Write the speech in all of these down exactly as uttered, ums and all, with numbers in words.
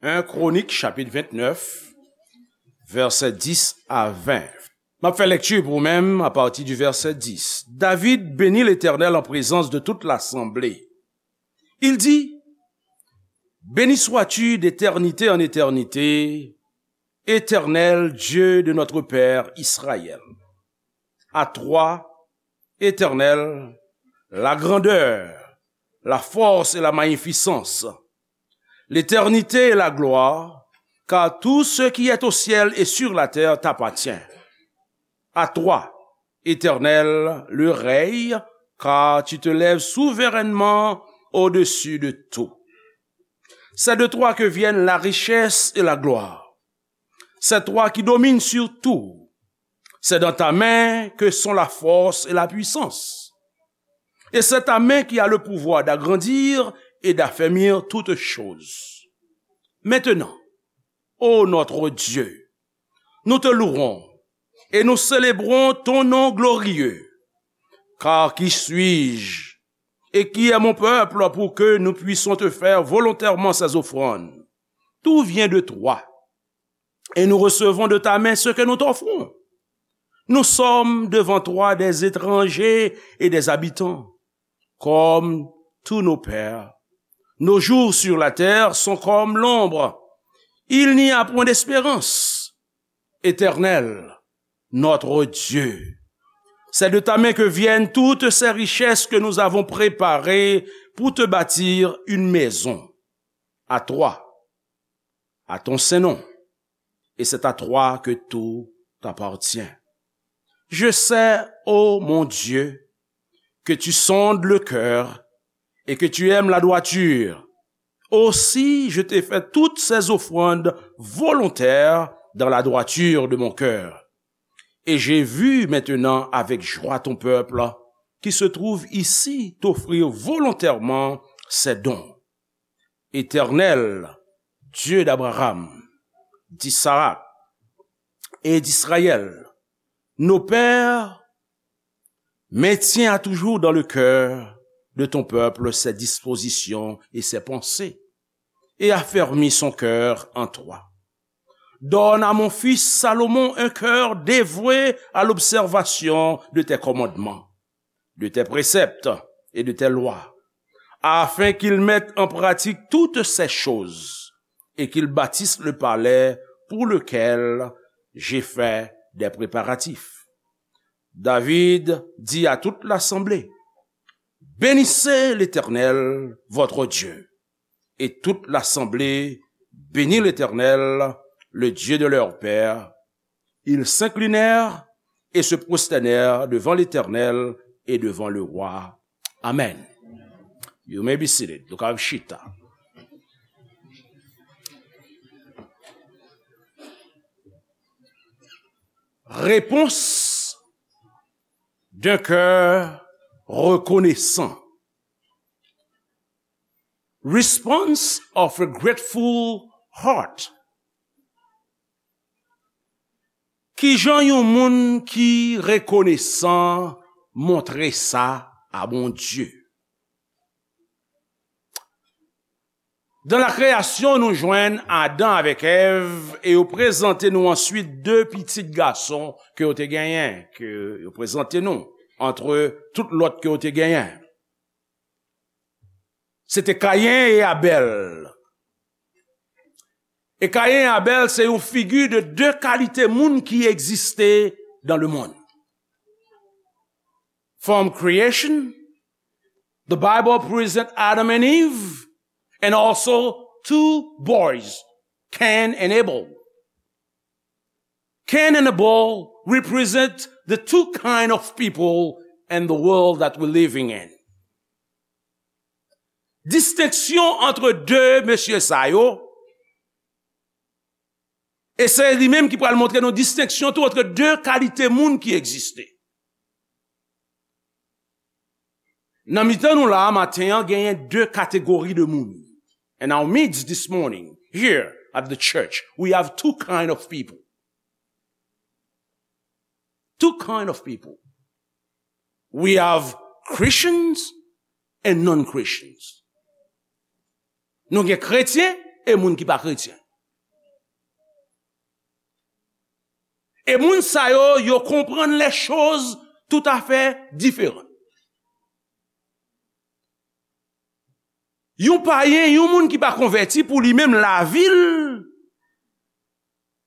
En Kronik, chapit vennèf, vèsè dis a ven. M ap fè lekti pou ou menm apati di vèsè dis. David bénit l'Éternel en présence de toute l'assemblée. Il dit, Béni sois-tu d'éternité en éternité, Éternel Dieu de notre père Israël. À toi, Éternel, la grandeur, la force et la magnificence, l'éternité et la gloire, car tout ce qui est au ciel et sur la terre t'appartient. À toi, Éternel, le règne, car tu te lèves souverainement au-dessus de tout. C'est de toi que viennent la richesse et la gloire. C'est toi qui domines sur tout. C'est dans ta main que sont la force et la puissance. Et c'est ta main qui a le pouvoir d'agrandir et d'affermir toutes choses. Maintenant, ô notre Dieu, nous te louons et nous célébrons ton nom glorieux. Car qui suis-je et qui est mon peuple pour que nous puissions te faire volontairement ces offrandes? Tout vient de toi, et nous recevons de ta main ce que nous t'offrons. Nous sommes devant toi des étrangers et des habitants, comme tous nos pères. Nos jours sur la terre sont comme l'ombre. Il n'y a point d'espérance. Éternel, notre Dieu, c'est de ta main que viennent toutes ces richesses que nous avons préparées pour te bâtir une maison. À toi, à ton saint nom, et c'est à toi que tout t'appartient. Je sais, ô mon Dieu, que tu sondes le cœur et que tu aimes la droiture. Aussi, je t'ai fait toutes ces offrandes volontaires dans la droiture de mon cœur. Et j'ai vu maintenant avec joie ton peuple qui se trouve ici t'offrir volontairement ses dons. Éternel, Dieu d'Abraham, d'Isaac et d'Israël, nos pères, maintiens à toujours dans le cœur de ton peuple ses dispositions et ses pensées, et affermis son cœur en toi. Donne à mon fils Salomon un cœur dévoué à l'observation de tes commandements, de tes préceptes et de tes lois, afin qu'il mette en pratique toutes ces choses et qu'il bâtisse le palais pour lequel j'ai fait des préparatifs. David dit à toute l'assemblée, Bénissez l'Éternel, votre Dieu. Et toute l'assemblée bénit l'Éternel, le Dieu de leur père. Ils s'inclinèrent et se prosternèrent devant l'Éternel et devant le roi. Amen. You may be seated. Nou ka chita. Réponse d'un cœur reconnaissant. Response of a grateful heart. Kijan yon moun ki rekonesan montre sa a Bondye? Dan la kreyasyon, nou jwenn Adan avèk Èv e yo prezante nou answit de pitit gason ke yo te genyen, ke yo prezante nou antre tout lòt ke yo te genyen. Se te Kayen e Abèl. E Kayen e Abèl se yon figi de de kalite moun ki egziste dans le monde. From creation, the Bible present Adam and Eve and also two boys, Cain and Abel. Cain and Abel represent the two kind of people and the world that we're living in. Distenksyon antre de mesye sa yo, e se li menm ki pral montre nou distenksyon tou antre de kalite moun ki egziste. Nan mitan nou la a maten an, genyen de kategori de moun. In our midst this morning, here at the church, we have two kind of people. Two kind of people. We have Christians and non-Christians. Nou gen kretyen e moun ki pa kretyen. E moun sa yo, yo konprann les choses tout à fait différent. Yon payen, yon moun ki pa konvèti, pou li menm, lavi l,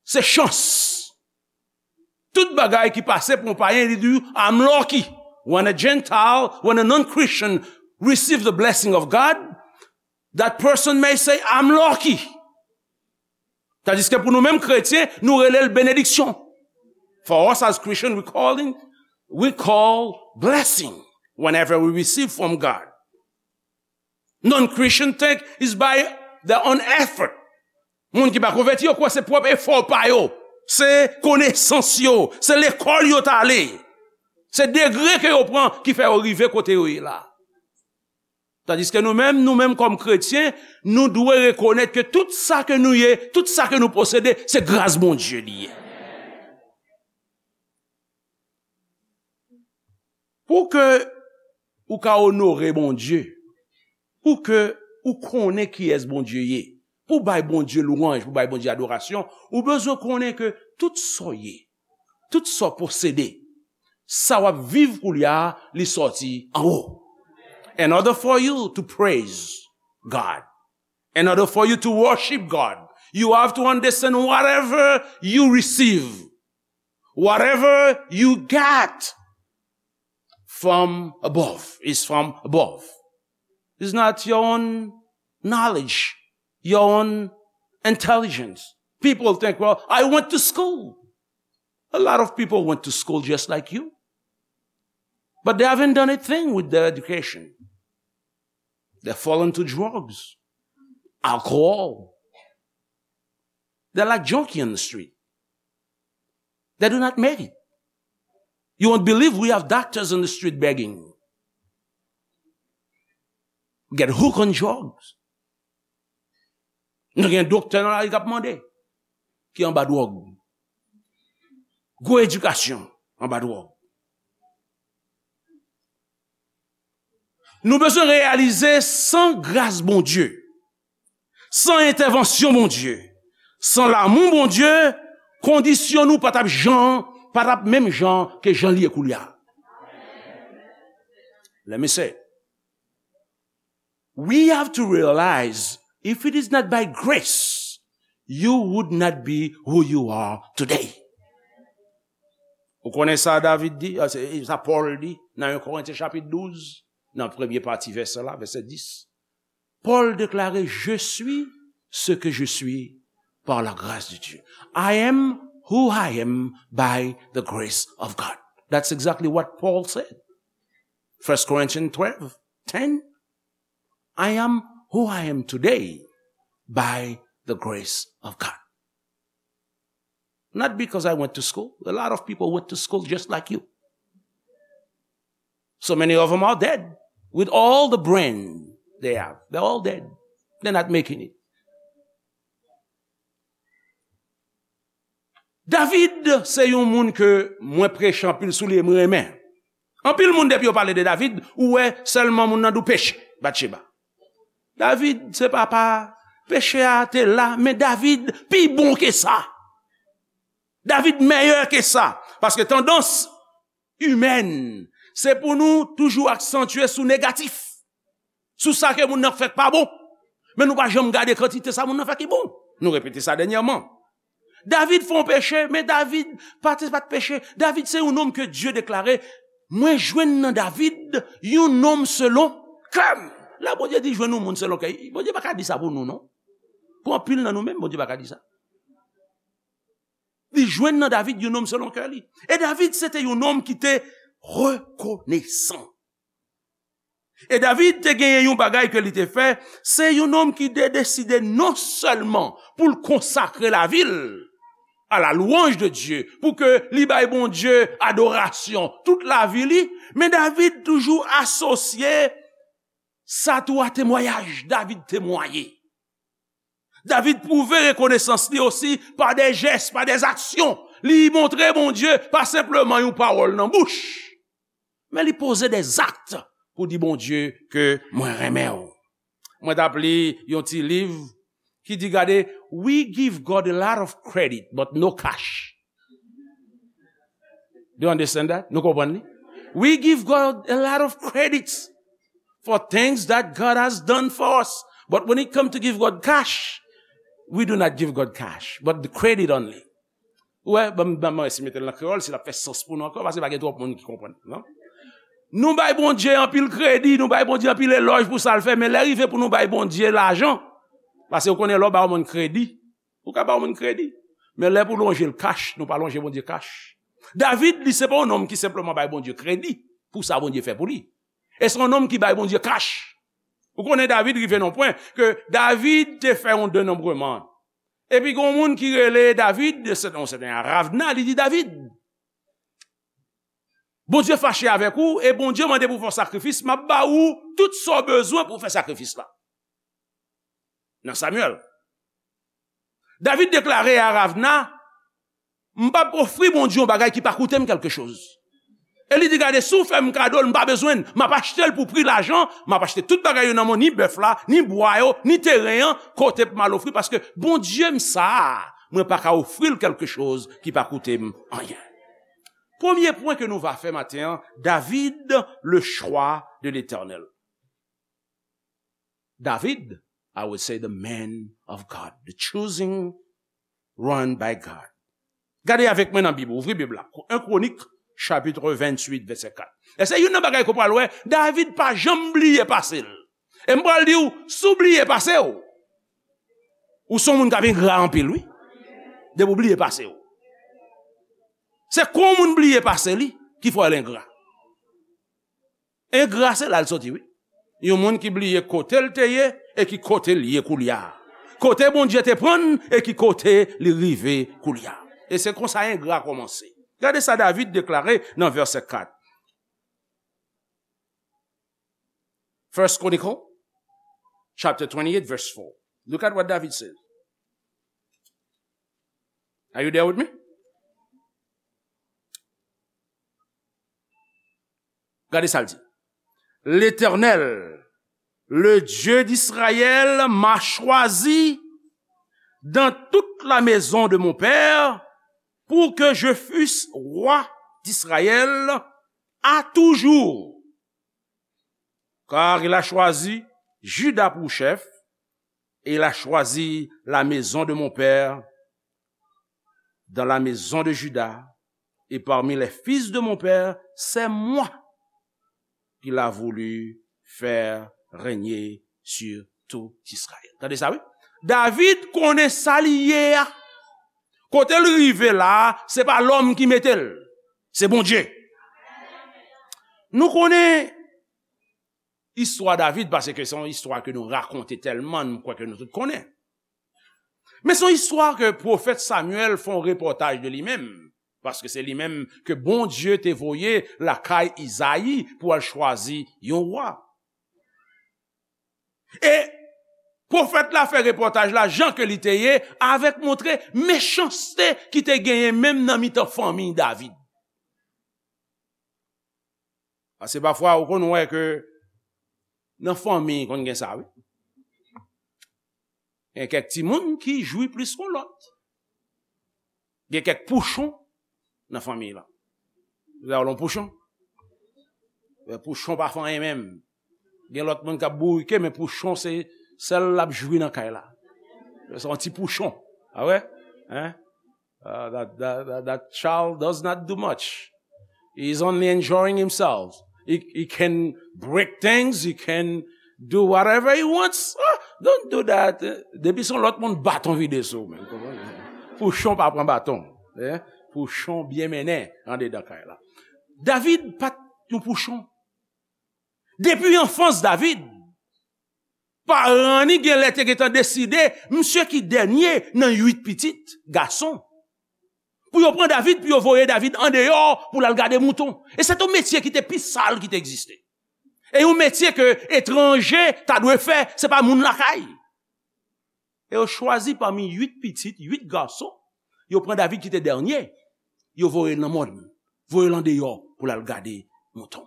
se chans. Tout bagay ki pase pou yon payen, li di, "I'm lucky." When a Gentile, when a non-Christian receive the blessing of God, that person may say, "I'm lucky." Tandiske pou nou menm kretyen, nou rele l benediksyon. For us as Christian, we call it, we call blessing whenever we receive from God. Non-Christian think is by their own effort. Moun ki pa konvèti yo kwè se pwòp efò pa yo, se konesans yo, se lekòl yo t ale, se degre ke yo pran ki fè yo rive kote yo ye la. Tandiske nou menm, nou menm kòm kretyen, nou dwe rekonèt ke tout sa ke nou ye, tout sa ke nou posede, se gras Bondye li ye. Pou ke ou ka onore Bondye, pou ke ou konnen kiyès Bondye ye, pou bay Bondye lwanj, pou bay Bondye adorasyon, ou bezwen konnen ke tout sa w ye, tout sa w posede, sa w ap viv koulye a, li sòti anwo. In order for you to praise God, in order for you to worship God, you have to understand whatever you receive, whatever you get from above, is from above. It's not your own knowledge, your own intelligence. People think, "Well, I went to school." A lot of people went to school just like you. But they haven't done a thing with their education. They fall into drugs, alcohol. They're like junkie on the street. They do not make it. You won't believe we have doctors on the street begging. Get hooked on drugs. Nou gen doktè nan lari k ap mande, ki anba dwòg. Gwo edikasyon anba dwòg. Nou bezwen reyalize, san gras Bondye, san entèvansyon Bondye, san lamou Bondye, kondisyon nou pa t ap jan, pa t ap menm jan ke jan l ye koulye a. Let me say, we have to realize, if it is not by grace, you would not be who you are today. Ou konnen sa David di, ah, se sa Pòl di nan en Korentyen chapit douz, nan premye pati vèsè la, vèsè dis. Pòl deklare, "Je suis ce que je suis par la grâce de Dieu." I am who I am by the grace of God. That's exactly what Paul said. First Corinthians twelve ten. I am who I am today by the grace of God. Not because I went to school. A lot of people went to school just like you. So many of them are dead with all the brain they have. They're all dead. They're not making it. David se yon moun ke mwen preche anpil sou li e mwen renmen. Anpil moun, depi yo pale de David, ou wè sèlman moun nan di w peche, Batcheba. David se papa, peche a te la, men David pi bon ke sa. David mèyè ke sa. Paske tandans imèn, se pou nou toujou aksantye sou negatif, sou sa ke moun nan fè k pa bon. Men nou pa janm gade kantite sa moun nan fè ki bon. Nou repete sa dènyèman. David fè yon peche, men David pa te, pa t peche. David se yon nonm ke Dye deklare, "Mwen jwenn nan David yon nonm selon kè m." Lè Bondye di jwenn yon moun selon kè, Bondye pa ka di sa pou nou, non. Pou anpil nan nou menm, Bondye pa ka di sa. Li jwenn nan David yon nonm selon kè li. E David se te yon nonm ki te rekonesan. E David te genyen yon bagay ke li te fè, se yon nonm ki te deside non sèlman pou l konsakre lavi l à la louange de Dieu, pou ke li bay Bondye adorasyon tout lavi li, men David toujou asosye sa tou a temwayaj, David temwaye. David pwouve rekonesans li osi pa de jès, pa de aksyon. Li montre Bondye pa senpleman yon pawòl nan bouch, men li poze de zak pou di Bondye ke mwen renmen w. Mwen t ap li yon ti liv ki di, gade, "We give God a lot of credit, but no cash." Do you understand that? Nou konprann li? "We give God a lot of credits for things that God has done for us. But when it comes to give God cash, we do not give God cash, but the credit only." Ou wè, ban m, ban m esi mete l nan kreyòl, si l ap fè sans pou nou ankò, paske pa gen twòp moun ki konprann, non? Nou bay Bondye anpil kredi, nou bay Bondye anpil elòj pou sa l fè, men lè rive pou nou bay Bondye lajan, paske ou konnen lè w ba yon moun kredi, ou ka ba yon moun kredi. Men lè pou lonje l kach, nou pa lonje Bondye kach. David, li se pa yon nonm ki senpleman bay Bondye kredi pou sa Bondye fè pou li. E se yon nonm ki bay Bondye kach. Ou konnen David rive nan pwen ke David te fè yon denonbreman. Epi gen yon moun ki rele David, se yon sèten Aravna, li di, "David, Bondye fache avèk ou, e Bondye mande pou fè yon sakrifis, m ap ba ou tout sa w bezwen pou w fè sakrifis la." Nan Samyèl. David deklare a Aravna, "M p ap ofri Bondye yon bagay ki pa koute m kèlkechoz." E li di, "Gade, si w fè m kado l, m pa bezwen l. M ap achte l pou pri lajan, m ap achte tout bagay yo nan men w, ni bèf la, ni bwa yo, ni teren an, kote pou m al ofri, paske Bondye m sa a, mwen pa ka ofri l kèlkechoz ki pa koute m anyen." Premye pwen ke nou va fè maten an, David, le choix de l'Éternel. David, I would say the man of God, the choosing one by God. Gade avèk mwen nan Bib, ouvri Bib la. En Kronik, chapit venntuit, vèsè kat. E se youn nan bagay ke w pral wè, David pa janm bliye pase l. E m pral di w, si w bliye pase w, ou se yon moun k ap engra anpil, wi. Depi w bliye pase w. Se kon moun bliye pase li, ki fè l engra. Engra se la l soti, wi. Yon moun ki bliye kote l te ye e ki kote l ye koulye a. Kote Bondye te pran l e ki kote li rive koulye a. E se konsa engra kòmanse. Gade sa David deklare nan vèsè kat. First Chronicle, chapter twenty-eight, verse four. Look at what David says. Are you there with me? Gade sa l di. L'Éternel, le Dieu d'Israël, m'a choisi dans toute la maison de mon père pour que je fusse roi d'Israël à toujours. Car il a choisi Juda pour chef, et il a choisi la maison de mon père dans la maison de Juda, et parmi les fils de mon père, c'est moi qu'il a voulu faire régner sur tout Israël. Tande sa, wi. David konnen sa li ye a. Kote l rive la, se pa lòm ki mete l. Se Bondye. Nou konnen istwa David, paske se yon istwa ke nou rakonte tèlman, m kwè ke nou tout konnen. Men se yon istwa ke pwofèt Samyèl fè yon repòtaj de li menm, paske se li menm ke Bondye te voye lakay Izayi pou al chwazi yon wa. E pwofèt la fè repòtaj la jan ke li te ye, avèk montre mechanste ki te genyen menm nan mitan fanmi David. Paske pafwa, ou konn wè ke nan fanmi, konn gen sa, wi. Gen kèk timoun ki jwi plis ke lòt. Gen kèk pouchon nan fanmi la. Ou wè yon pouchon? Men pouchon pa fè anyen menm. Gen lòt moun k ap bourike, men pouchon se sèl l ap jwi nan kay la. Se yon ti pouchon. A wè? Hein? Uh, that, that, that, that child does not do much. He's only enjoying himself. He, he can break things, he can do whatever he wants. Ah, don't do that. Depi se yon lòt moun, baton vide sou ou, men. Pouchon pa pran baton. Eh? Pouchon byen mennen andedan kay la. David pa t yon pouchon. Depi anfans David, paran ni genlè te gentan deside, misye ki dènye nan uit pitit gason. Pou yo pran David, pou yo voye David andeyò pou l al gade mouton. E se te yon metye ki te pi sal ki te egziste. E yon metye ke etranje ta dwe fè, se pa moun lakay. E yo chwazi pami uit pitit, uit gason, yo pran David ki te dènye, yo voye l nan mòn, voye l andeyò pou l al gade mouton,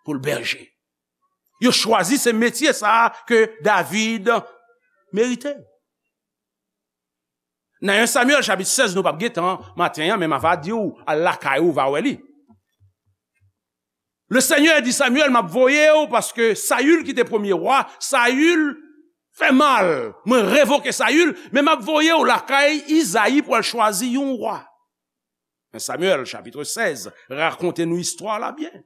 pou l bèje. Yo chwazi se metye sa a ke David merite. Nan en Samyèl chapit sèz, nou p ap gen tan maten an, men m ava di w, al lakay ou, va wè li. Le Seigneur di Samyèl, m ap voye w paske Sayil ki te premye wa, Sayil fè mal. Mwen revoke Sayil, men m ap voye w lakay Izayi pou al chwazi yon wa. Men Samyèl, chapitre seize, rakonte nou istwa la byen.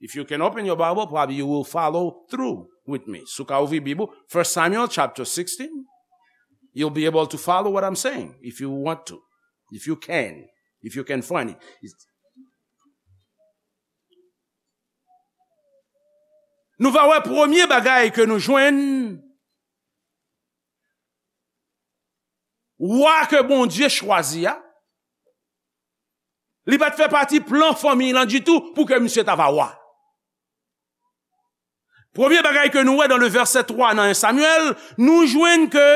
If you can open your Bible, probably you will follow through with me. Si w ka ouvri Bib ou, First Samuel chapter sixteen, you'll be able to follow what I'm saying, if you want to, if you can, if you can find it. Nou va wè premye bagay ke nou jwenn, wa ke Bondye chwazi a, li pa t fè pati plan fanmiy lan ditou pou ke misye ta va wa. Premye bagay ke nou wè dan le vèsè twa nan en Samyèl, nou jwenn ke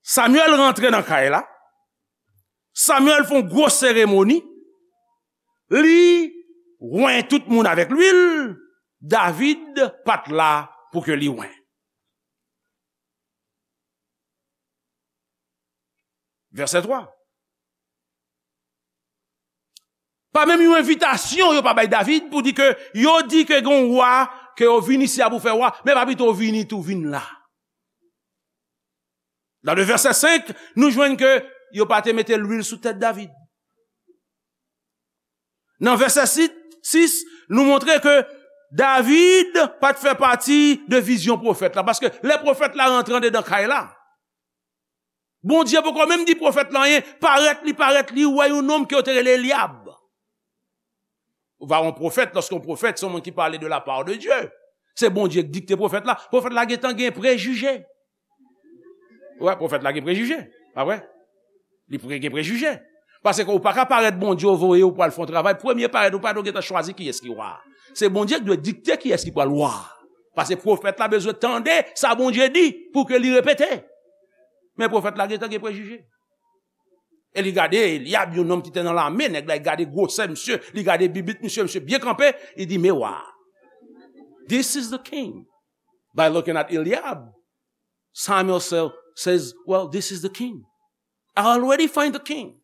Samyèl rantre nan kay la. Samyèl fè yon gwo seremoni. Li wen tout moun avèk lwil. David pa t la pou ke li wen. Vèsè twa. Pa menm yon envitasyon yo pa bay David pou di ke yo di ke gen yon wa, ke yo vin isi a pou fè wa, men pa pito vini tou vin la. Dan le vèsè senk, nou jwenn ke yo pa te mete lwil sou tèt David. Nan vèsè sis, nou montre ke David pa t fè pati de vizyon pwofèt la, paske lè pwofèt la rantre andedan kay la, Bondye poko menm di pwofèt la anyen, parèt li parèt li wè yon nonm ke yo te rele Elyab. Ou va yon pwofèt, lòske yon pwofèt, se yon moun ki pale de la part de Dieu. Se Bondye ki dikte pwofèt la. Pwofèt la gentan gen prejije. Wè, pwofèt la gen prejije. Pa vre? Li pre-, gen prejije. Paske ou pa ka parèt Bondye ou voye ou pral fè yon travay. Premye parèt ou pa dwe gentan chwazi kiyès ki wa. Se Bondye ki dwe dikte kiyès ki pral wa. Paske pwofèt la bezwen tande sa Bondye di pou ke li repete. Men pwofèt la gentan gen prejije. E li gade Elyab, yon nonm ki te nan lame, nèg la, li gade gwosè misye, li gade bibit misye, misye byen kanpe, li di, "Men wa. This is the king." By looking at Eliab, Samuel sa-, says, "Well, this is the king. I already find the king.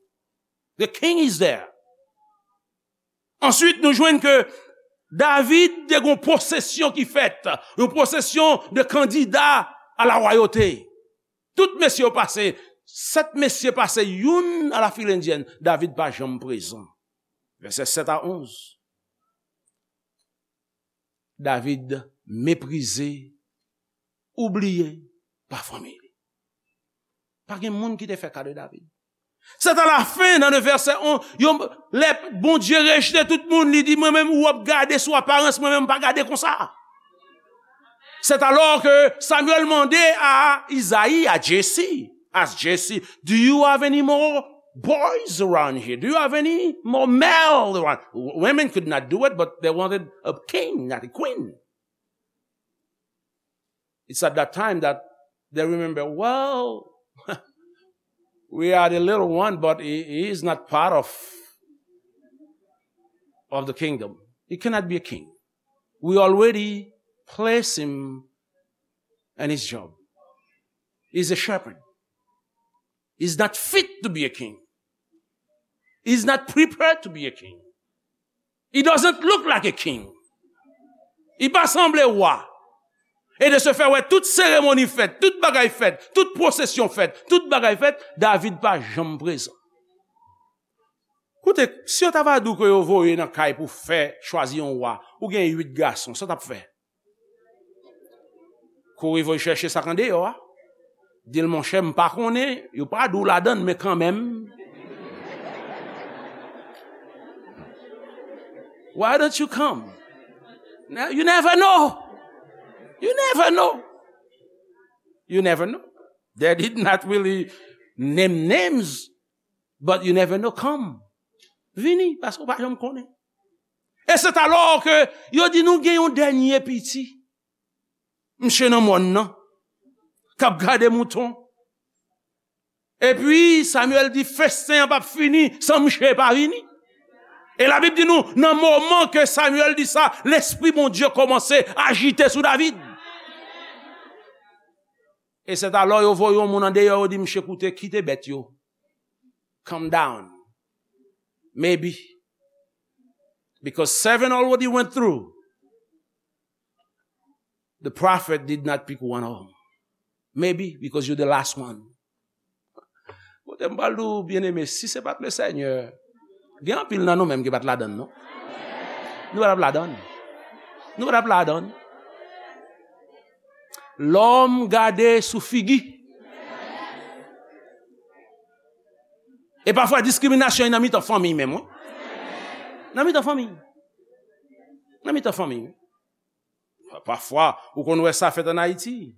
The king is there." Answit, nou jwenn ke David te gon pwosesyon ki fèt, yon pwosesyon de kandida a la wayote. Tout mesye yo pase, sèt mesye pase, youn a la fil endyèn, David pa janm prezan. Vèsè sèt a onz. David meprize, oubliye pa fanmi li. Pa gen moun ki te fè ka de David. Sèt a la fen, nan le vèsè onz, yo, lè Bondye rejte tout moun, li di, "Mwen menm, ou ap gade sou aparans, mwen menm, m pa gade konsa." C'est alors que Samuel mande a Izayi, a Jesse, ask Jesse, "Do you have any more boys around here? Do you have any more male around?" Women could not do it, but they wanted a king, not a queen. It's at that time that they remember, "Well, we are the little one, but he, he is not part of, of the kingdom. He cannot be a king. We already place him in his job. He's a shepherd. He's not fit to be a king. He's not prepared to be a king. He doesn't look like a king. Li pa sanble wa." E de se fè, wè, tout seremoni fèt, tout bagay fèt, tout pwosesyon fèt, tout bagay fèt, David pa janm prezan. Koute, si yo ta va di w ke yo voye nan kay pou fè chwazi yon wa, ou gen uit gason, sa w t ap fè? Kouri voye chèche sa k andeyò a. Di l, "Monchè, m pa konnen, yo pa di w ladann, men kanmenm. Why don't you come?" Now, you never know. You never know. You never know. They did not really name names, but you never know. Come. Vini, paske w pa janm konnen. E se alò ke yo di nou gen yon dènye piti. Misye nan mòn nan, k ap gade mouton. Epi Samyèl di, "Festen an p ap fini san misye pa vini." E Labib di nou, nan moman ke Samyèl di sa, Lespri Bondye kòmanse ajite sou David. E sèt alò yo voye yon moun andeyò, yo di, "Msye, koute, kite bèt yo. Calm down." Maybe. Because seven already went through. The prophet did not pick one of them. Maybe because you're the last one. Kote m pral di w, byeneme, si se pa t le Senyè, gen anpil nan nou menm ki pa t ladann, non. Nou pa t ap ladann. Nou pa t ap ladann. Lòm gade sou figi. E pafwa diskriminasyon nan mitan fanmi menm, wi. Nan mitan fanmi. Nan mitan fanmi, wi. Pafwa, ou konn wè sa fèt ann Ayiti.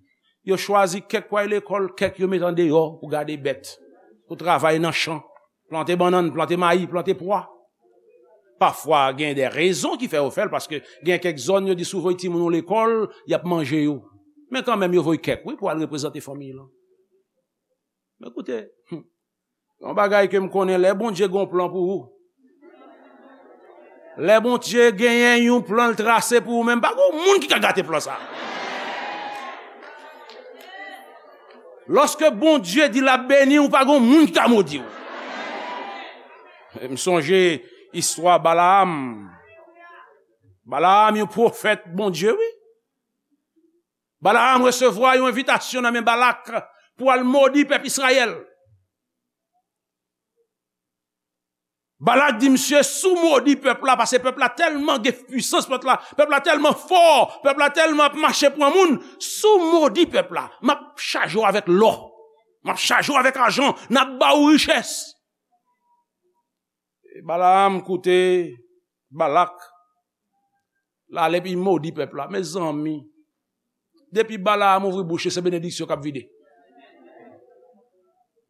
Yo chwazi kèk pou al lekòl, kèk yo met andeyò pou gade bèt, pou travay nan chan, plante bannann, plante mayi, plante pwa. Pafwa, gen de rezon ki fè yo fè l, paske gen kèk zòn yo di si w voye timoun ou lekòl, y ap manje yo. Men kanmenm, yo voye kèk, wi, pou al reprezante fanmi lan. Men koute, hmm, yon bagay ke m konnen, lè Bondye gen yon plan pou ou, lè Bondye genyen yon plan l trase pou ou menm, pa gen yon moun ki ka gate plan sa. Lòske Bondye di l ap beni w, pa gen yon moun ki ka modi w. M sonje istwa Balaam. Balaam, yon pwofèt Bondye, wi. Balaam resevwa yon envitasyon nan men Balak pou al modi pèp Izrayèl. Balak di misye, "Si w modi pèp la, paske pèp la tèlman gen pwisans, pèp la, pèp la tèlman fò, pèp la tèlman ap mache pran moun, si w modi pèp la, m ap chaje w avèk lò, m ap chaje w avèk ajan, n ap ba w richès." E Balaam koute Balak. L ale epi modi pèp la. Mezanmi, depi Balaam ouvri bouch li, se benediksyon k ap vide.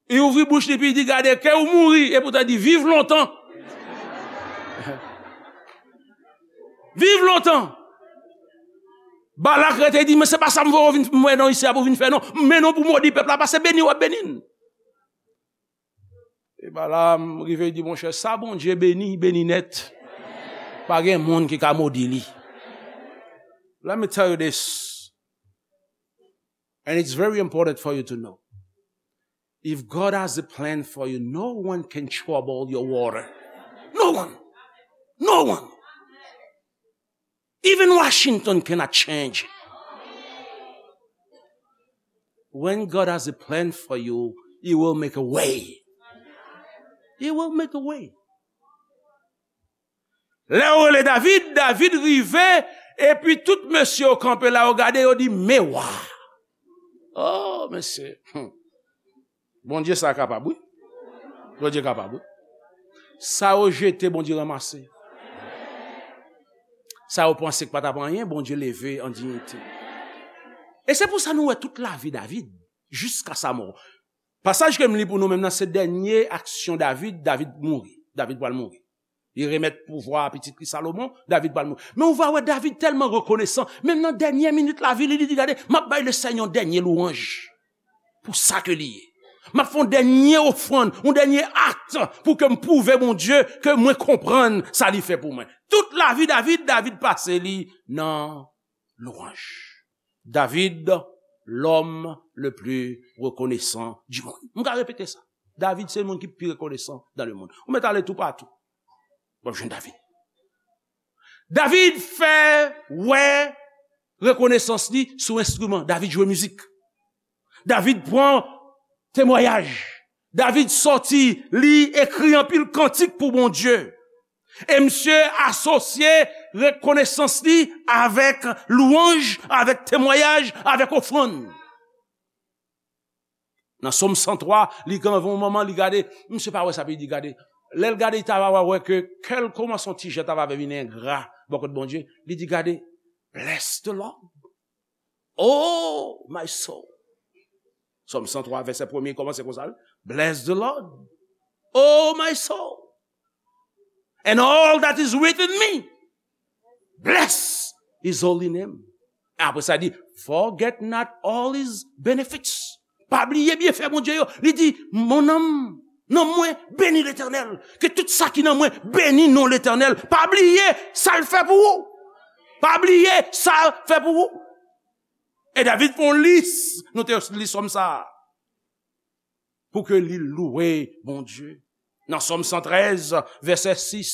Li ouvri bouch li epi li di, "Gade, ke w mouri," epoutan li di, "Viv lontan." "Viv lontan." Balak rete, li di, "Men se pa sa m voye w vin, m wè non isi a pou w vin fè non. M mennen w pou w modi pèp la, paske beni w ap beni n." E Balaam rive, li di, "Monchè, sa Bondye beni, beni nèt. Pa gen moun ki ka modi li." Let me tell you this, and it's very important for you to know. If God has a plan for you, no one can trouble your water. No one. No one. Even Washington cannot change it. When God has a plan for you, He will make a way. He will make a way. Lè yo rele David, David rive, epi tout mesye yo kanpe la, yo gade, yo di, "Men wa." Oh, mesye. Hmm. Bondye sa kapab, wi. Bondye kapab, wi. Sa yo jete, Bondye ranmase. Sa yo panse k pa t ap anyen, Bondye leve an diyite. E se pou sa nou wè tout lavi David, jiska sa mò. Pasaj ke m li pou nou menm nan, se dènye aksyon David, David mouri. David pral mouri. Li remèt pouvwa a pitit li Salomon, David pral mouri. Men ou va wè David tèlman rekonesan, menm nan dènye minit lavi li, li di, "Gade, m ap bay Lesenyè yon dènye lwanj pou sa ke li ye. M ap fè yon dènye ofrann, yon dènye akt pou ke m pwouve Bondye ke mwen konprann sa li fè pou mwen." Tout lavi David, David pase li nan lwanj. David, l'homme le plus reconnaissant du monde. M ka repete sa. David se moun ki pi rekonesan dans le monde. Ou mèt ale toupatou, w ap jwenn David. David fè wè rekonesans li sou enstriman. David jwe mizik. David pran temwayaj. David sòti, li ekri anpil kantik pou Bondye. E misye asosye rekonesans li avèk lwanj, avèk temwayaj, avèk ofrann. Nan Sòm san twa, li gen yon moman, li gade, misye pa wè sa, epi li di, gade. Lè l gade, li ta va wè ke kè l kòmanse yon ti jan ta va vin engra bò kot Bondye. Li di, gade, "Bless the Lord, oh my soul." Sòm san twa, vèsè premye, kòmanse konsa, wi. "Bless the Lord, oh my soul, and all that is within me, bless his holy name." Apre sa, li di, "Forget not all his benefits." Pa bliye byenfè Bondye yo. Li di, "Mon âme, nanm mwen, bénis l'Éternel." Ke tout sa ki nan mwen, beni non Letènèl. Pa bliye sa l fè pou ou. Pa bliye sa l fè pou ou. E David fè yon lis, nou te li sòm sa a, pou ke li louwe Bondye. Nan Sòm san trèz, vèsè sis,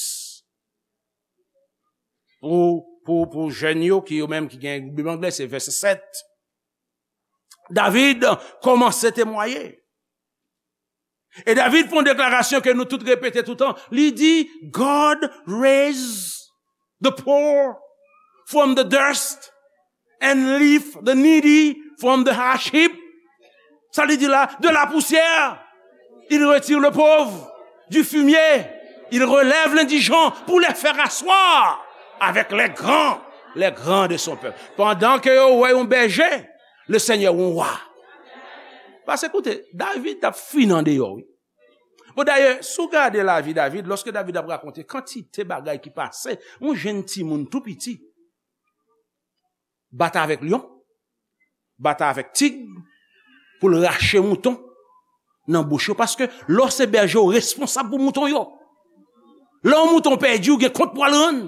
pou, pou, pou jèn yo, ki yo menm ki gen Bib anglè, se vèsè sèt. David kòmanse temwaye. E David fè yon deklarasyon ke nou tout repete toutan. Li di, "God raise the poor from the dust and lift the needy from the ash heap." Sa li di la, "De la poussière, il retire le pauvre, du fumier, il relève l'indigent pour les faire asseoir avec les grands, les grands de son peuple." Pandan ke yo wè yon bèje, le Seigneur yon wa. Paske koute, David t ap fin andeyò, wi. Bon, dayè, si w gade lavi David, lòske David ap rakonte kantite bagay ki pase, yon jenn timoun tou piti, bat avèk lyon, bat avèk tig, pou l rache mouton nan bouch yo, paske lè w se bèje, w responsab pou mouton yo. Lè yon mouton pèdi, ou gen kont pou al rann.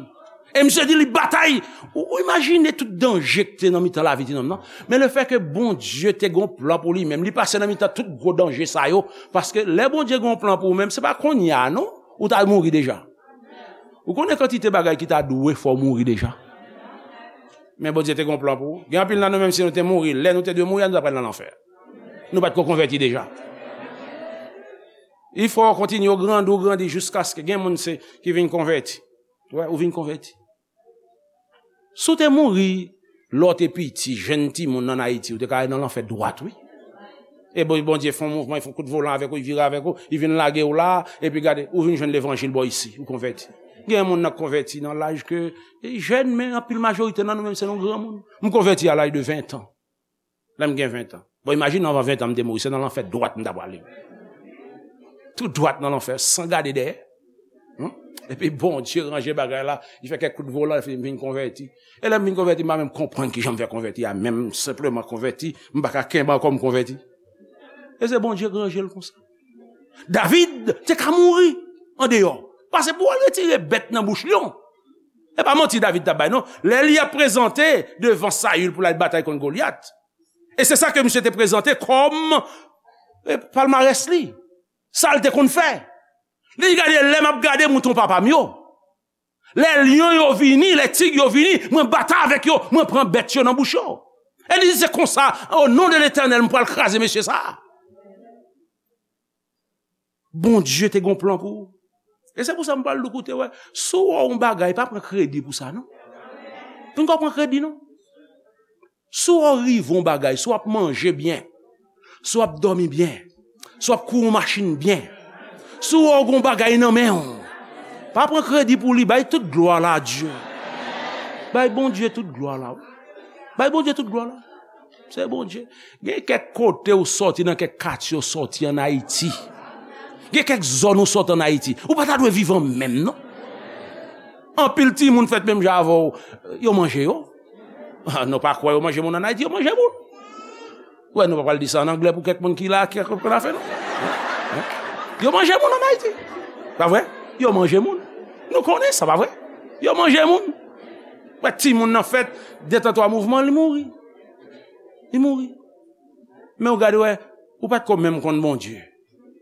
E misye di li batay. Ou, ou imajine tout danje ki te nan mitan lavi timoun nan. Men lefètke Bondye te gon plan pou li menm, li pase nan mitan tout gwo danje sa yo. Paske lè Bondye gon plan pou ou menm, se pa kounye a non, ou ta mouri deja. Ou konnen kantite bagay ki ta dwe fè w mouri deja. Men Bondye te gon plan pou ou. Gen anpil nan nou menm si nou te mouri, lè nou te dwe mouri a, nou ta pral nan lanfè. Nou pa t ko konvèti deja. Il faut continuer, ou grandi, ou grandi jiskaske gen moun se ki vin konvèti. Wè, ou vin konvèti. Si w te mouri lè w te piti, jenn timoun ann Ayiti, ou te ka al nan lanfè dwat, wi. E bon, Bondye fè yon mouvman, li fè yon kout volan avèk ou, li vire avèk ou, li vin lage w la, epi gade, ou vin jwenn levanjil bò isi, ou konvèti. Gen moun nan konvèti nan laj ke, e jèn, men anpil majorite nan nou menm se nou granmoun. M konvèti a laj de ven tan. Lè m gen ven tan. Bon, imajine anvan ven tan m te mouri, se nan lanfè dwat m ta prale. Tou dwat nan lanfè, san gade dèyè. Hmm? Epi Bondye ranje bagay la, li fè kèk kout volan, epi m vin konvèti. E lè m vin konvèti, m pa menm konprann kijan m fè konvèti a, menm senpleman konvèti, m pa ka kenbe ankò m konvèti. E se Bondye ki ranje l konsa. David te ka mouri andeyò. Pase pou al retire bèt nan bouch lyon. E pa manti David t ap bay, non. Lè li ap prezante devan Sayil pou l al batay kont Golyat. E se sa ke misye te prezante kòm, e, palmarès li. Sa l te konn fè. Li di, "Gade, lè m ap gade mouton papa m yo. Lè lyon yo vini, lè tig yo vini, mwen batay avèk yo, mwen pran bèt yo nan bouch yo." E li di, "Se konsa, o non de Letènèl, m pral kraze mesye sa a." Bondye te gon plan pou ou. E se pou sa m pral di w, koute, wè, si w wè yon bagay, pa pran kredi pou sa, non. Pinga w pran kredi, non. Si w rive yon bagay, si w ap manje byen, si w ap dòmi byen, si w ap kouri yon machin byen, si w wè w gen yon bagay nan men w, pa pran kredi pou li, bay tout glwa la a Dye. Bay Bondye tout glwa la, wi. Bay Bondye tout glwa la. Se Bondye. Gen kèk kote w sòti, nan kèk katye w sòti ann Ayiti. Gen kèk zòn w sòti ann Ayiti. Ou pa ta dwe viv an menm, non. Anpil timoun fèt menm jan avè w, yo manje yo. Ah, nou pa kwè yo manje moun ann Ayiti, yo manje moun. Wè, nou pa pral di sa an anglè pou kèk moun ki la, ki konn afè nou. Yo manje moun ann Ayiti. Pa vre? Yo manje moun. Nou konnen sa, pa vre? Yo manje moun. Wè, timoun nan fèt, de tan twa mouvman, li mouri. Li mouri. Men ou gade, wè, ou pa t ko menm konn Bondye.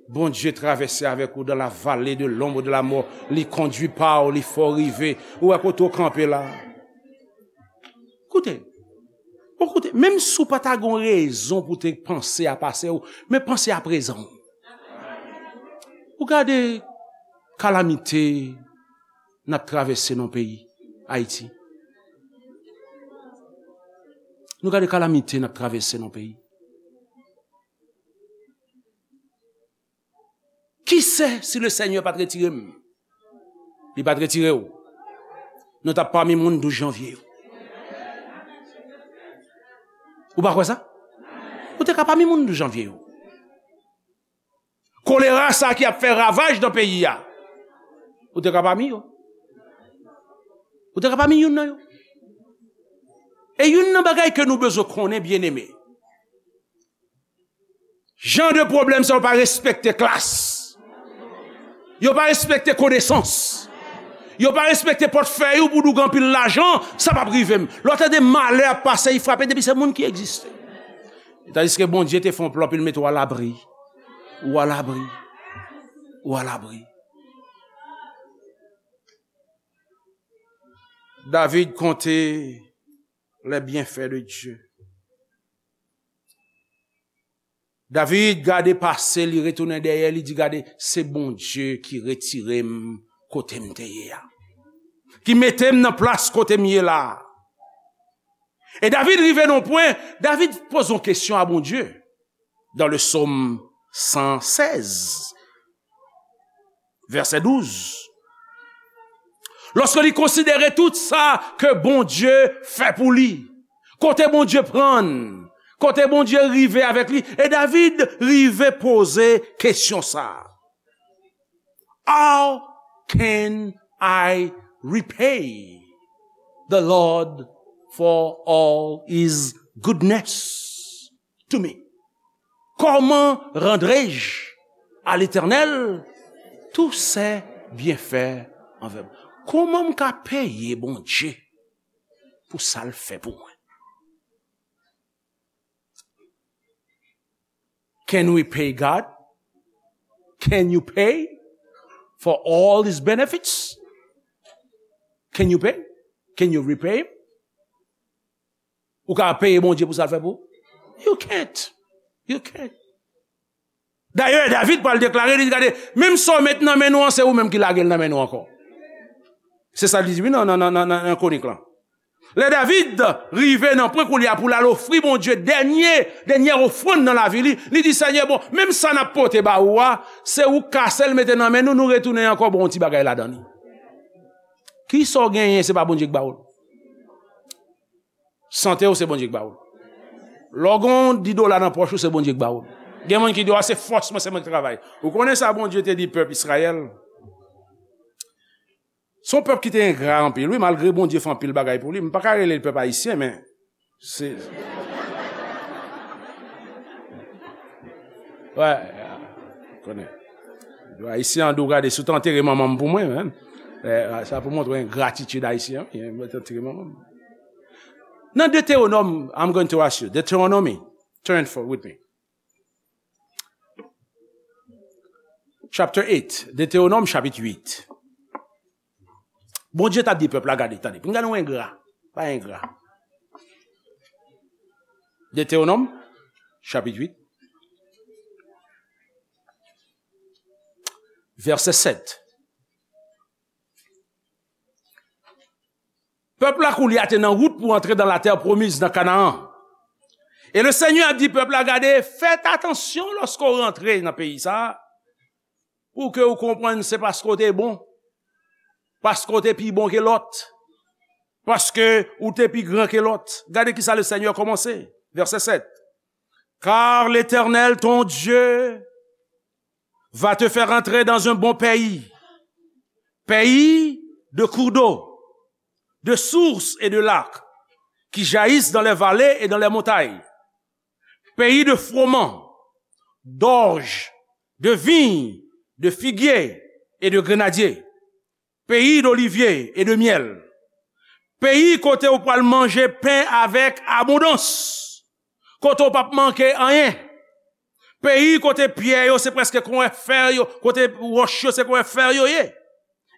Bondye travèse avèk ou dans la vallée de l'ombre de la mort. Li kondui pa w, li fè w rive. Ou wè kote w kanpe la. Koute. Bon, koute, menm si w pa ta gen yon rezon pou te panse a pase w, men panse a prezan w. Ou gade kalamite n ap travèse nan peyi Ayiti. Nou gade kalamite n ap travèse nan peyi. Kisa si le Senyè pa t retire m? Li pa t retire w. Nou t ap pami moun douz janvye yo. Ou pa kwè sa? Ou te ka pami moun douz janvye yo. Kolera sa ki ap fè ravaj nan peyi a. Ou te ka pami yo. Ou te ka pami youn nan yo. E youn nan bagay ke nou bezwen konnen, byeneme. Jan de pwoblèm sa yo pa respekte klas. Yo pa respekte konesans. Yo pa respekte pòtfèy ou pou di w gen anpil lajan, sa p ap rive m. Lè w tande malè ap pase, li frape depi se moun ki egziste. Tandiske Bondye te fè yon plan pou l mete w alabri. Ou alabri. Ou alabri. David konte les bienfaits de Dieu. David gade pase, li retounen dèyè, li di, "Gade, se Bondye ki retire m kote m te ye a, ki mete m nan plas kote m ye la a." E David rive nan yon pwen, David poze yon kesyon a Bondye. Dans le psaume cent seize, verset douze. Lòske li konsidere tout sa ke Bondye fè pou li, kote Bondye pran l, kote Bondye rive avèk li, e David rive poze kesyon sa a, "How can I repay the Lord for all his goodness to me?" Comment rendrai-je à l'Éternel tous ses bienfaits envers moi? Kòman m ka peye Bondye pou sa l fè pou mwen? Can we pay God? Can you pay for all his benefits? Can you pay? Can you repay him? Ou ka peye Bondye pou sa l fè pou ou? You can't. You can't. Dayè, David pral deklare, li di, "Gade, menm sa w met nan men nou an, se ou menm ki lage l nan men nou ankò." Se sa li di, wi, nan, nan, nan, nan, nan Kwonik lan. Lè David rive nan pwen koulye a pou l al ofri Bondye dènye, dènyè ofrann nan lavi li, li di, "Senyè, bon, menm sa n ap pote ba ou a, se ou k kase l mete nan men nou, nou retounen ankò ba w yon ti bagay ladan li." Kisa w genyen, se pa Bondye k ba w l? Sante w, se Bondye k ba w l. Lè w gen yon dis dola nan pòch ou, se Bondye k ba w l. Gen moun ki di, "A, se fòs mwen, se mwen ki travay." Ou konnen sa Bondye te di pèp Izrayèl? Se yon pèp ki te engra anpil, wi, malgre Bondye fè anpil bagay pou li. M pa ka rele l pèp ayisyen, men se, wè, konnen. Ayisyen an di w, "Gade, si w te antere manman m pou mwen, men, eh, sa pou montre w engratitid ayisyen, wi, mwen te antere manman m." Nan Deuteronome, I'm going to ask you, Deuteronomy, turn for, with me. Chapter eight, Deutéronome chapit uit. Bondye t ap di pèp la, gade, tande, pou n gade yon engra, pa engra. Deutéronome chapit uit, vèsè sèt. Pèp la koulye a te nan wout pou antre dans la terre promise, nan Kanaan. E le Senyè ap di pèp la, gade, fèt atansyon lòske w rantre nan peyi sa a, pou ke w konprann se paske w te bon, paske w te pi bon ke lòt, paske w te pi gran ke lòt. Gade kisa le Senyè kòmanse, vèsè sèt. Car l'Éternel, ton Dieu, va te faire entrer dans un bon pays, pays de cours d'eau, de sources et de lacs qui jaillissent dans les vallées et dans les montagnes, pays de froment, d'orge, de vigne, de figuier et de grenadier, pays d'olivier et de miel. Peyi kote w pral manje pen avèk abondans, kote w p ap manke anyen. Peyi kote pyè yo se prèske konwè fè yo, kote wòch yo se konwè fè yo ye.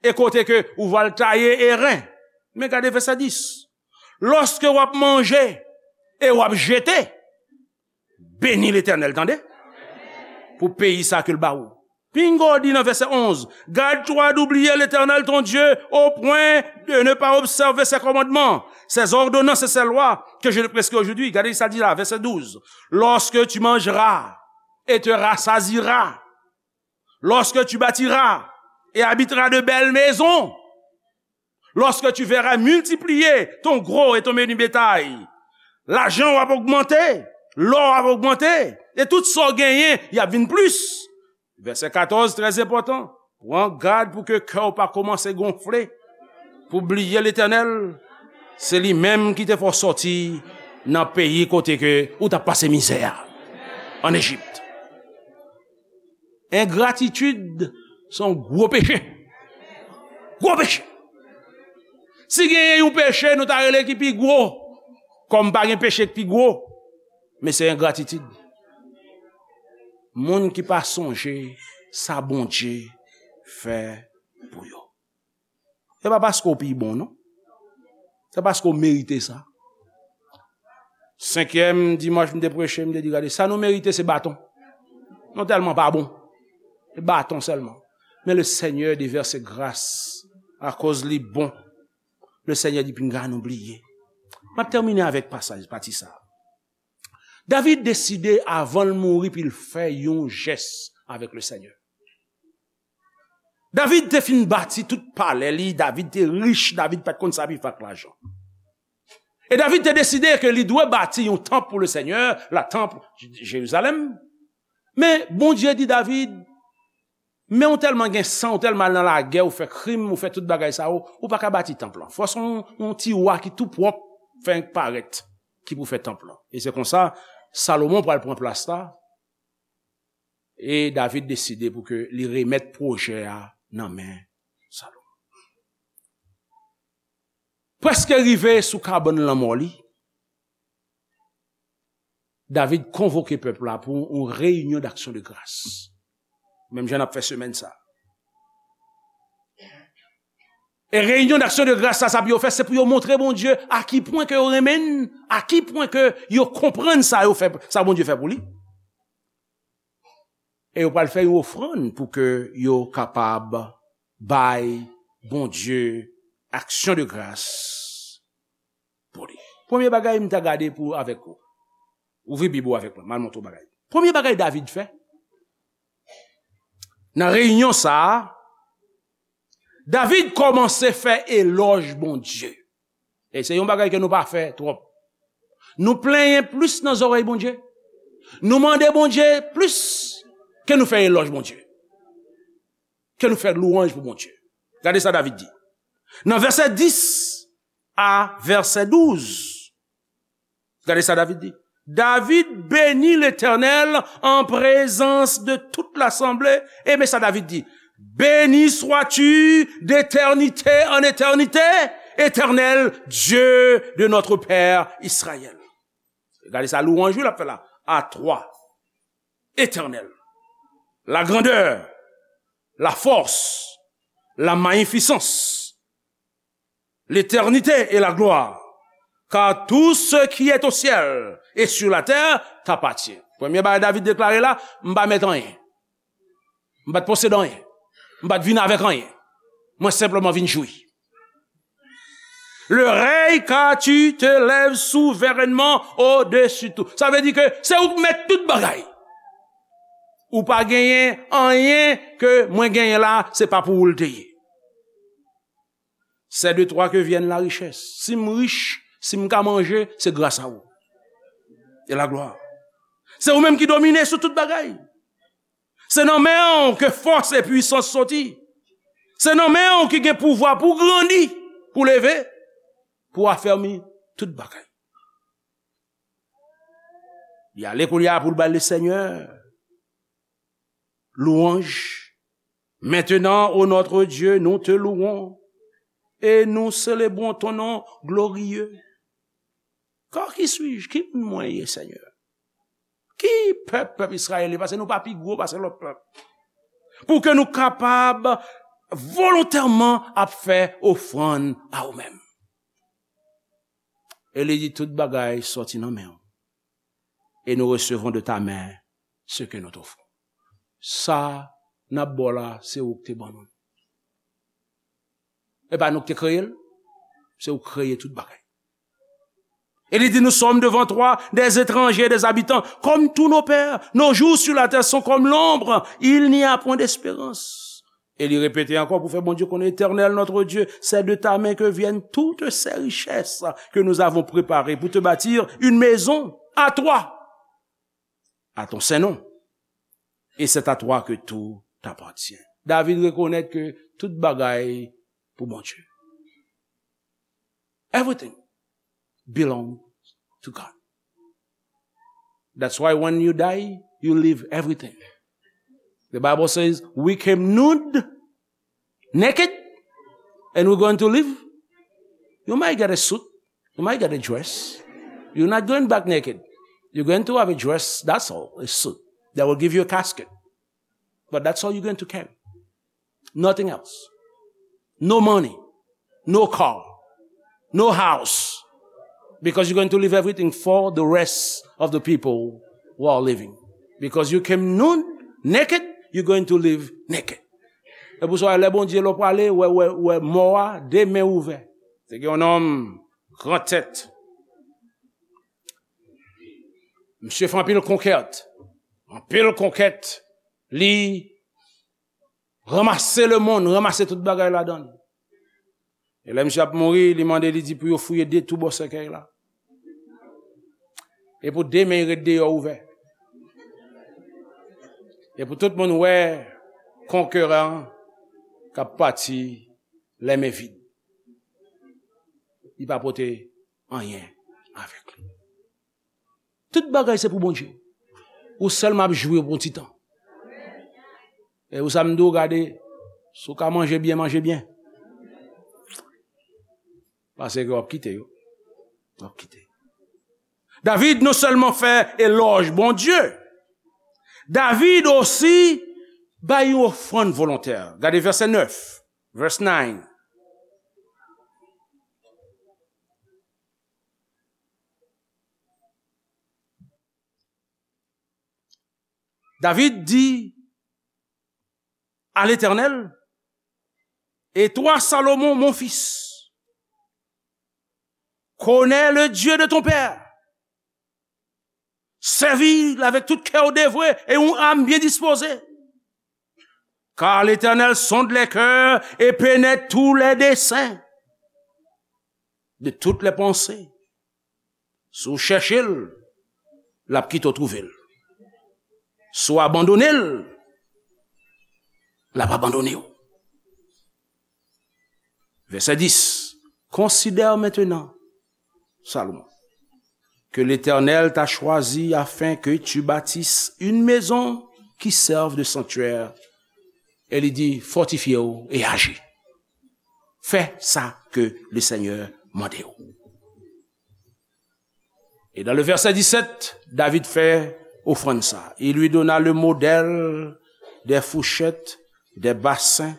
E kote ke ou va l taye e ren. Men gade vèsè dis. Lòske w ap manje e w ap jete, beni Letènèl, tande, pou peyi sa ke l ba ou. Pinga w di nan vèsè onz, garde-toi d'oublier l'Éternel ton Dieu au point de ne pas observer ses commandements, ses ordonnances et ses lois que je te prescris aujourd'hui. Gade sa l di la, vèsè douz. Lorsque tu mangeras et te rassasieras, lorsque tu bâtiras et habiteras de belles maisons, lorsque tu verras multiplier ton gros et ton menu bétail, lajan w ap ogmante, lò w ap ogmante, e tout sa w genyen, y ap vin plis. Vèsè katòz, trè enpòtan. Pran gad pou ke kè w pa kòmanse gonfle, pou bliye Letènèl. Se li menm ki te fè w sòti nan peyi kote ke ou t ap pase mizè a, ann Ejip. Engratitid se yon gwo peche. Gwo peche. Si genyen yon peche, nou ta rele ki pi gwo. Kòm pa gen peche ki pi gwo. Men se engratitid. Moun ki pa sonje sa Bondye fè pou yo. Se pa paske w pi bon, non. Se paske w merite sa. Senkyèm dimanch m te preche, m te di, gade, sa nou merite se baton. Nou tèlman pa bon. Se baton sèlman. Men le Seigneur déverse grâce akoz li bon. Le Seigneur di, pinga nou bliye. M ap tèmine avèk pasaj, pati sa. David deside avan l mouri pou l fè yon jès avèk le Seigneur. David te fin bati tout palè li, David te rich, David pa t konn sa pou l fè ak lajan. E David te deside ke li dwe bati yon tanp pou le Seigneur, la tanp Jerizalèm. Men Bondye di David, men ou tèlman gen san, ou tèlman al nan lagè, ou fè krim, ou fè tout bagay sa yo, ou pa ka bati tanp lan. Fò se yon, yon tiwa ki tou pwòp, fè parèt, ki pou fè tanp lan. E se konsa, Salomon pral pran plas la, e David deside pou ke li remèt pwojè a nan men Salomon. Prèske rive sou kabann lanmò li, David konvoke pèp la pou yon reyinyon d'action de grâce. Menm jan n ap fè semèn sa. E reyinyon d'action de grâce sa, sa pou yo fè, se pou yo montre Bondye a ki pwen ke yo renmen l, a ki pwen ke yo konprann sa yo fè, sa Bondye fè pou li. E yo pral fè yon ofrann pou ke yo kapab bay Bondye action de grâce pou li. Premye bagay m ta gade pou avèk ou. Ouvri Bib ou avèk mwen, m al montre w bagay. Premye bagay David fè, nan reyinyon sa a, David kòmanse fè elòj Bondye. E se yon bagay ke nou pa fè twòp. Nou plenyen plis nan zòrèy Bondye. Nou mande Bondye plis ke nou fè elòj Bondye. Ke nou fè lwanj pou Bondye. Gade sa David di. Nan vèsè dis a vèsè douz. Gade sa David di. David bénit l'Éternel en présence de toute l'assemblée. E men sa David di. Béni sois-tu d'éternité en éternité, Éternel Dieu de notre père Israël. Gade sa lwanj wi l ap fè la. À toi, Éternel, la grandeur, la force, la magnificence, l'éternité et la gloire, car tout ce qui est au ciel et sur la terre t'appartient. Premye bagay David deklare la, m pa mèt anyen. M pa t posede anyen. M pa t vin avèk anyen. Mwen senpleman vin jwi. Le règne, car tu te lèves souverainement au-dessus tout. Sa vle di ke se ou k mèt tout bagay. Ou pa genyen anyen ke mwen genyen la, se pa pou ou l te ye. C'est de toi que viennent la richesse. Si m rich, si m ka manje, se gras a ou. E la glwa. Se ou menm ki domine sou tout bagay. Se nan men w ke fòs e pwisans soti. Se nan men w ki gen pouvwa pou grandi, pou leve, pou afèmi tout bagay. Li ale kounye a pou l bay le Seigneur louange. Maintenant, ô notre Dieu, nous te louons et nous célébrons ton nom glorieux. Car qui suis-je? Ki moun mwen ye, Senyè? Ki pèp, pèp Izrayèl ye? Paske nou pa pi gwo pase lòt pèp. Pou ke nou kapab volontèman ap fè ofrann a ou menm. E li di, tout bagay sòti nan men w. Et nous recevons de ta main ce que nous t'offrons. Sa n ap ba w la, se ou k te ban nou. E pa nou k te kreye l, se ou k kreye tout bagay. E li di, nous sommes devant toi des étrangers, des habitants, comme tous nos pères. Nos jours sur la terre sont comme l'ombre, il n'y a point d'espérance. E li repete ankò pou fè Bondye konnen, Éternel notre Dieu, c'est de ta main que viennent toutes ces richesses que nous avons préparées pour te bâtir une maison à toi, à ton saint nom. Et c'est à toi que tout appartient. David rekonèt ke tout bagay pou Bondye. Everything belongs to God. That's why when you die, you leave everything. The Bible says, we came nude, naked, and we're going to leave You might get a suit. You might get a dress. You're not going back naked. You're going to have a dress, that's all, a suit. That will give you a casket. But that's all you're going to carry. Nothing else. No money. No car. No house. Because you're going to leave everything for the rest of the people who are living. Because you came nude, naked, you're going to leave naked. E pou sa, lè Bondye lè w prale, wè, wè, wè mò a, de men ouvè. Se gen yon nonm gran tèt. Misye fè anpil konkèt. Anpil konkèt. Li ranmase lemonn, ranmase tout bagay ladan l. E lè misye ap mouri, li mande, li di pou yo fouye de tou bò sèkèy la. E pou de men ret deyò ouvè. E pou tout moun wè konkeran k ap pati lè men vid. Li pa pote anyen avèk li. Tout bagay se pou Bondye. Ou sèlman ap jwi pou yon ti tan. E ou sa m di w, gade, si w ka manje byen, manje byen. Paske w ap kite yo. W ap kite. David non sèlman fè elòj Bondye, David osi bay yon ofrann volontè. Gade vèsè nèf, verse nine. David dit à l'Éternel, et toi, Salomon, mon fils, connais le Dieu de ton père. Sèvi l avèk tout kè w devwe e yon âme bien disposée. Car l'Éternel sonde les cœurs et pénètre tous les desseins de toutes les pensées. Si w chèche l, l ap kite w twouve l. Si w abandone l, l ap abandone w. Verset dix. Considère maintenant, Salomon, que l'Éternel t'a choisi afin que tu bâtisses une maison qui serve de sanctuaire. E li di, fòtifye w e aji. Fè sa ke le Senyè mande w. Et dans le verset dix-sept, David fait offrande ça. Il lui donna le modèle des fourchettes, des bassins,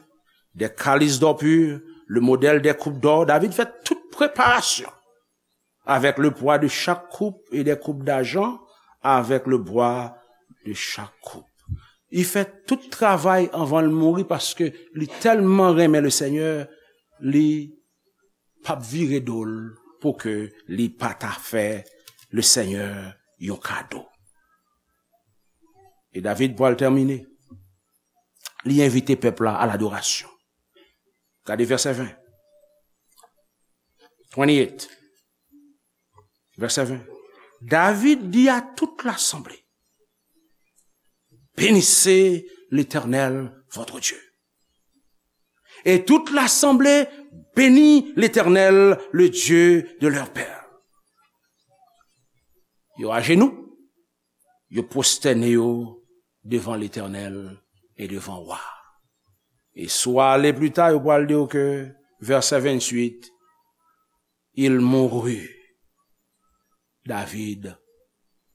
des calices d'or pur, le modèle des coupes d'or. David fait toute préparation avec le poids de chaque coupe et des coupes d'argent avec le bois de chaque coupe. Li fè tout travay anvan l mouri paske li tèlman renmen le Senyè, li p ap vire do l pou ke li pa ta fè le Senyè yon kado. E David pral tèmine. Li envite pèp la a ladorasyon. Gade vèsè ven. Twenty-eight. Verset vingt. David dit à toute l'assemblée, bénissez l'Éternel, votre Dieu. Et toute l'assemblée bénit l'Éternel, le Dieu de leur père. Yo ajenou, yo pwostène yo devan Letènèl e devan wa. E si w ale pli ta, yo pral di w ke, vèsè venntuit, il mourut. David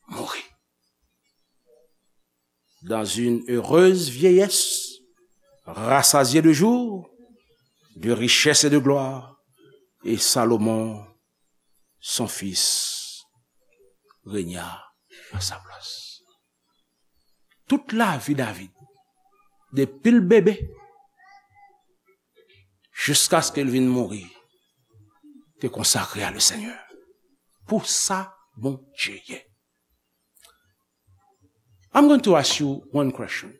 mourut dans une heureuse vieillesse, rassasié de jours, de richesses et de gloire, et Salomon, son fils, régna à sa place. Tout lavi David, depi l bebe, jiskaske l vin mouri, te konsakre a le Senyè. Pou sa Bondye ye. I'm going to ask you one question.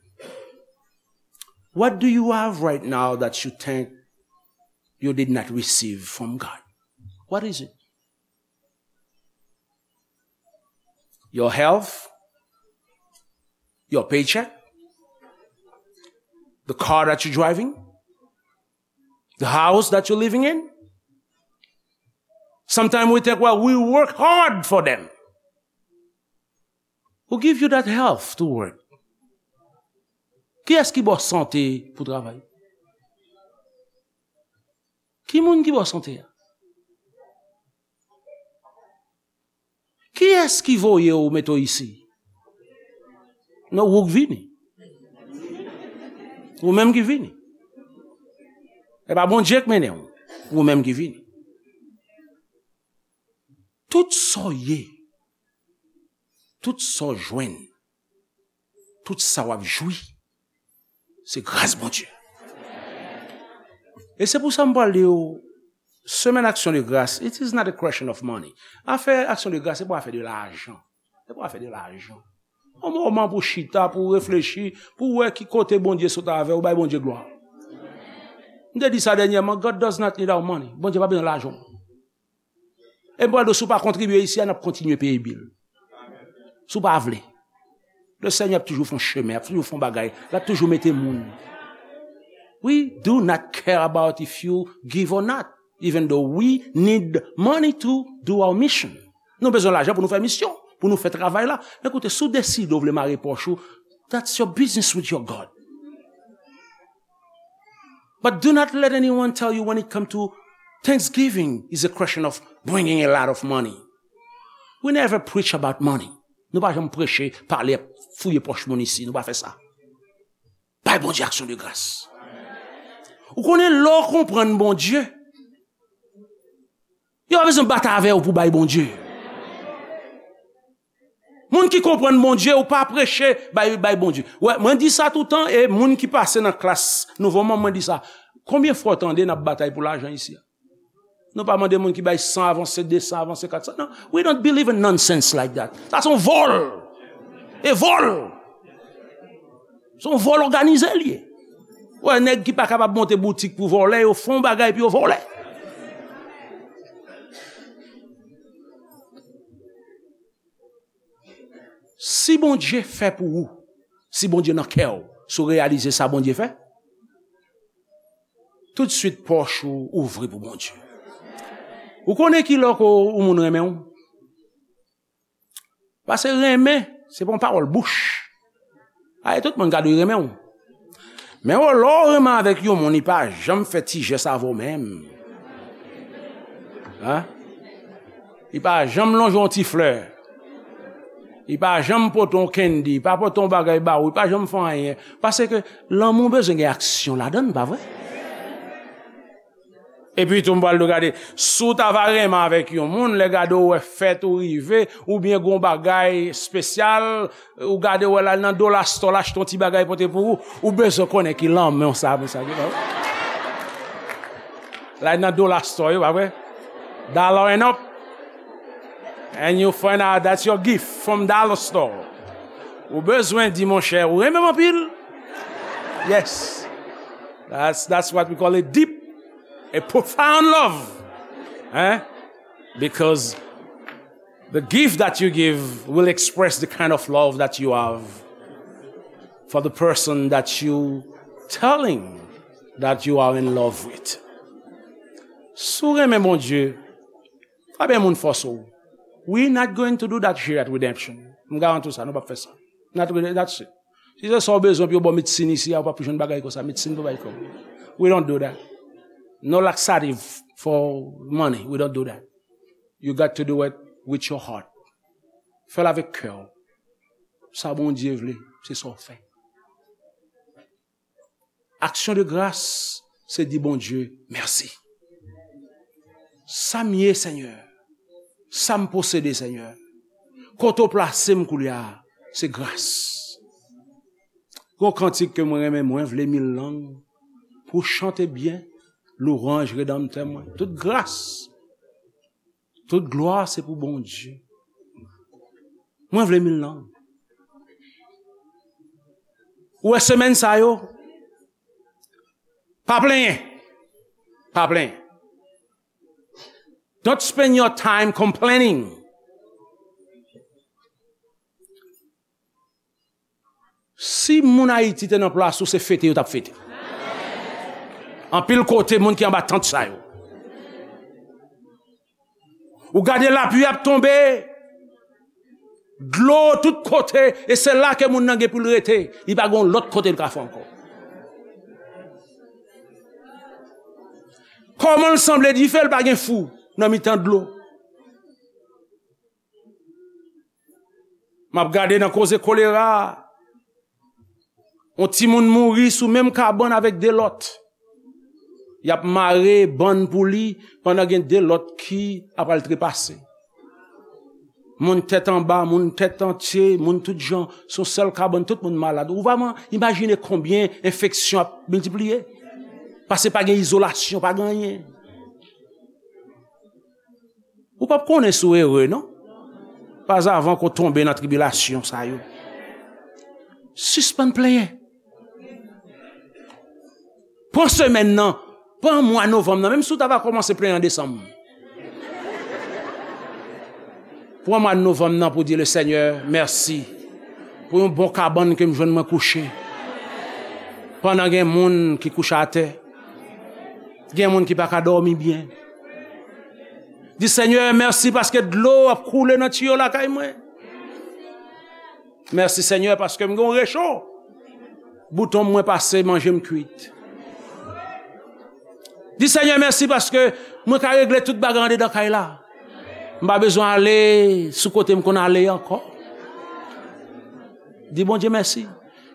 What do you have right now that you think you did not receive from God? What is it? Your health, your paycheck, the car that you're driving, the house that you're living in. Sometimes we think, well, we work hard for them. Who give you that health to work? Kiyès ki ba w sante pou travay? Ki moun ki ba w sante a? Kiyès ki voye w mete w isi? Non, ou k vini. Ou menm ki vini. E pa Bondye k mennen w. Ou menm ki vini. Tout sa w ye, tout sa w jwenn, tout sa w ap jwi, se gras Bondye. E se pou sa m pral di w, semèn aksyon de gras, it is not a question of money. Afè aksyon de gras, se pa afè de lajan. Se pa afè de lajan. Yon moman pou chita, pou reflechi, pou wè ki kote Bondye sot avè w, bay Bondye glwa. M te di sa dènyèman, God does not need our money. Bondye pa bezwen lajan w. E m pral di w, si w pa kontribye isi a, n ap kontinye peye bil. Si w pa vle. Le Senyè ap toujou fè yon chemen, ap toujou fè yon bagay, l ap toujou mete moun. We do not care about if you give or not, even though we need money to do our mission. Nou bezwen lajan pou nou fè misyon, pou nou fè travay la. Men koute, si w deside w vle mare pòch ou, that's your business with your God. But do not let anyone tell you when it come to Thanksgiving is a question of bringing a lot of money. We never preach about money. Nou pa janm preche, pale, fouye pòch moun isi. Nou pa fè sa. Bay Bondye aksyon de gras. Ou konnen lè w konprann Bondye, yo pa bezwen bat avè w pou bay Bondye. Moun ki konprann Bondye, ou pa preche bay, bay Bondye. Wè, mwen di sa toutan, e moun ki pase nan klas nouvo manm, mwen di sa. Konbyen fwa w tande n ap batay pou lajan isi a? Nou pa mande moun ki bay san avanse, de san avanse, kat san. Non, we don't believe in nonsense like that. Sa se yon vòl. E vòl. Se yon vòl òganize l ye. Wè, nèg ki pa kapab monte boutik pou vòlè, yo fè yon bagay pou yo vòlè. Si Bondye fè pou ou, si Bondye nan kè w, si w reyalize sa Bondye fè, toutswit pòch ou ouvri pou Bondye. Ou konnen ki lè ke yon moun renmen w? Paske renmen, se pa yon pawòl bouch. Ay, tout moun ka di renmen w. Men w, lè w renmen avèk yon moun, li pa janm fè ti jès avè w menm. Hein? Li pa janm lonje yon ti flè. Li pa janm pote yon candy, li pa pote yon bagay ba ou, li pa janm fè anyen. Paske lanmou bezwen gen aksyon ladan l, pa vre? Epi tou, m pral di w, gade, si w ta va renmen avèk yon moun, lè gade w wè fèt ou rive, oubyen gon bagay espesyal, ou gade w wè l al nan Dollar Store, l achte yon ti bagay pote pou ou, ou bezwen konnen ki lanmou sa, pou sa, ki lanmou. L al nan Dollar Store, yo, pa vre? Dollar and up. And you find out that's your gift from Dollar Store. Ou bezwen di, monchè, ou renmen m anpil? Yes. That's, that's what we call a deep, a profound love. Hein? Because the gift that you give will express the kind of love that you have for the person that you telling that you are in love with. Si w renmen Bondye, pa bay moun fòse w. We not going to do that here at Redemption. M garanti w sa, nou p ap fè sa. Not gonna, that's it. Si se sa w bezwen pou yo ba w medsin isi a, ou p ap jwenn bagay konsa. Medsin pou bay kòb. We don't do that. No laxative for money. We don't do that. You got to do it with your heart. Fè l avèk kè w. Sa Bondye vle, se sa w fè. Aksyon de gras, se di Bondye mèsi. Sa m ye, Senyè, sa m posede, Senyè, kote w plase m koulye a, se gras. Gon kantik ke mwen renmen, mwen vle mil lang pou chante byen lwanj Redanmtè mwen. Tout gras, tout glwa se pou Bondye. Mwen vle mil lang. Ou wè semèn sa yo? Pa plenyen. Pa plenyen. Don't spend your time complaining. Si moun Ayiti te nan plas ou, se fete yo t ap fete. Anpil kote, moun ki anba tant sa yo. Ou gade lapli ap tonbe, dlo tout kote, e se la ke moun nan gen pou l rete. Li pa gen lòt kote l ka fè ankò. Kòman l sanble dife, l pa gen fou nan mitan dlo? M ap gade nan koze kolera a. Yon timoun mouri sou menm kabann avèk de lòt. Y ap mare bann pou li pandan gen de lòt ki ap al trepase. Moun tèt anba, moun tèt antye, moun tout jan, sou sèl kabann, tout moun malad. Ou pa man-, imajine konbyen enfeksyon ap miltipliye. Paske pa gen izolasyon, pa gen anyen. Ou p ap konnen si w ere, non. Pas avan ke w tonbe nan tribilasyon sa yo. Sispann plenyen. Pran semèn nan, pran mwa novanm nan, menm si w ta va kòmanse plenyen an desanm. Pran mwa novanm nan pou di le Senyè mèsi pou yon bon kabann ke m jwenn mwen kouche. Pandan gen moun ki kouche atè, gen moun ki pa ka dòmi byen. Di, Senyè, mèsi paske dlo ap koule nan tiyo lakay mwen. Mèsi, Senyè, paske m gen yon recho. Bouton mwen pase, manje m kwit. Di, Senyè, mèsi paske mwen ka regle tout bagay andedan kay la. M pa bezwen ale sou kote m konn ale ankò. Di Bondye mèsi.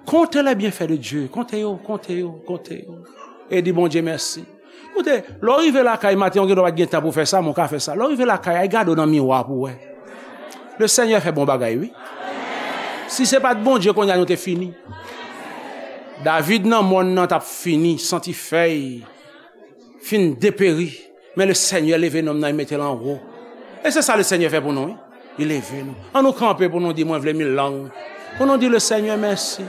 Comptez les bienfaits de Dieu. Konte yo, konte yo, konte yo. E di Bondye mèsi. Koute, lè w rive lakay maten, ou gen dwa pa t gen tan pou w fè sa, men w ka fè sa. Lè w rive lakay, al gade w nan miwa pou w wè. Le Senyè fè bon bagay, wi. Si se pa t Bondye, kounye a nou te fini. David nan mòn nan t ap fini, santi fèy fin deperi. Men le Senyè leve nonm nan, li mete l anwo. E se sa le Senyè fè pou nou, wi. Li leve nou. An nou kanpe pou nou di, mwen vle mil lang. Pou nou di le Senyè mèsi.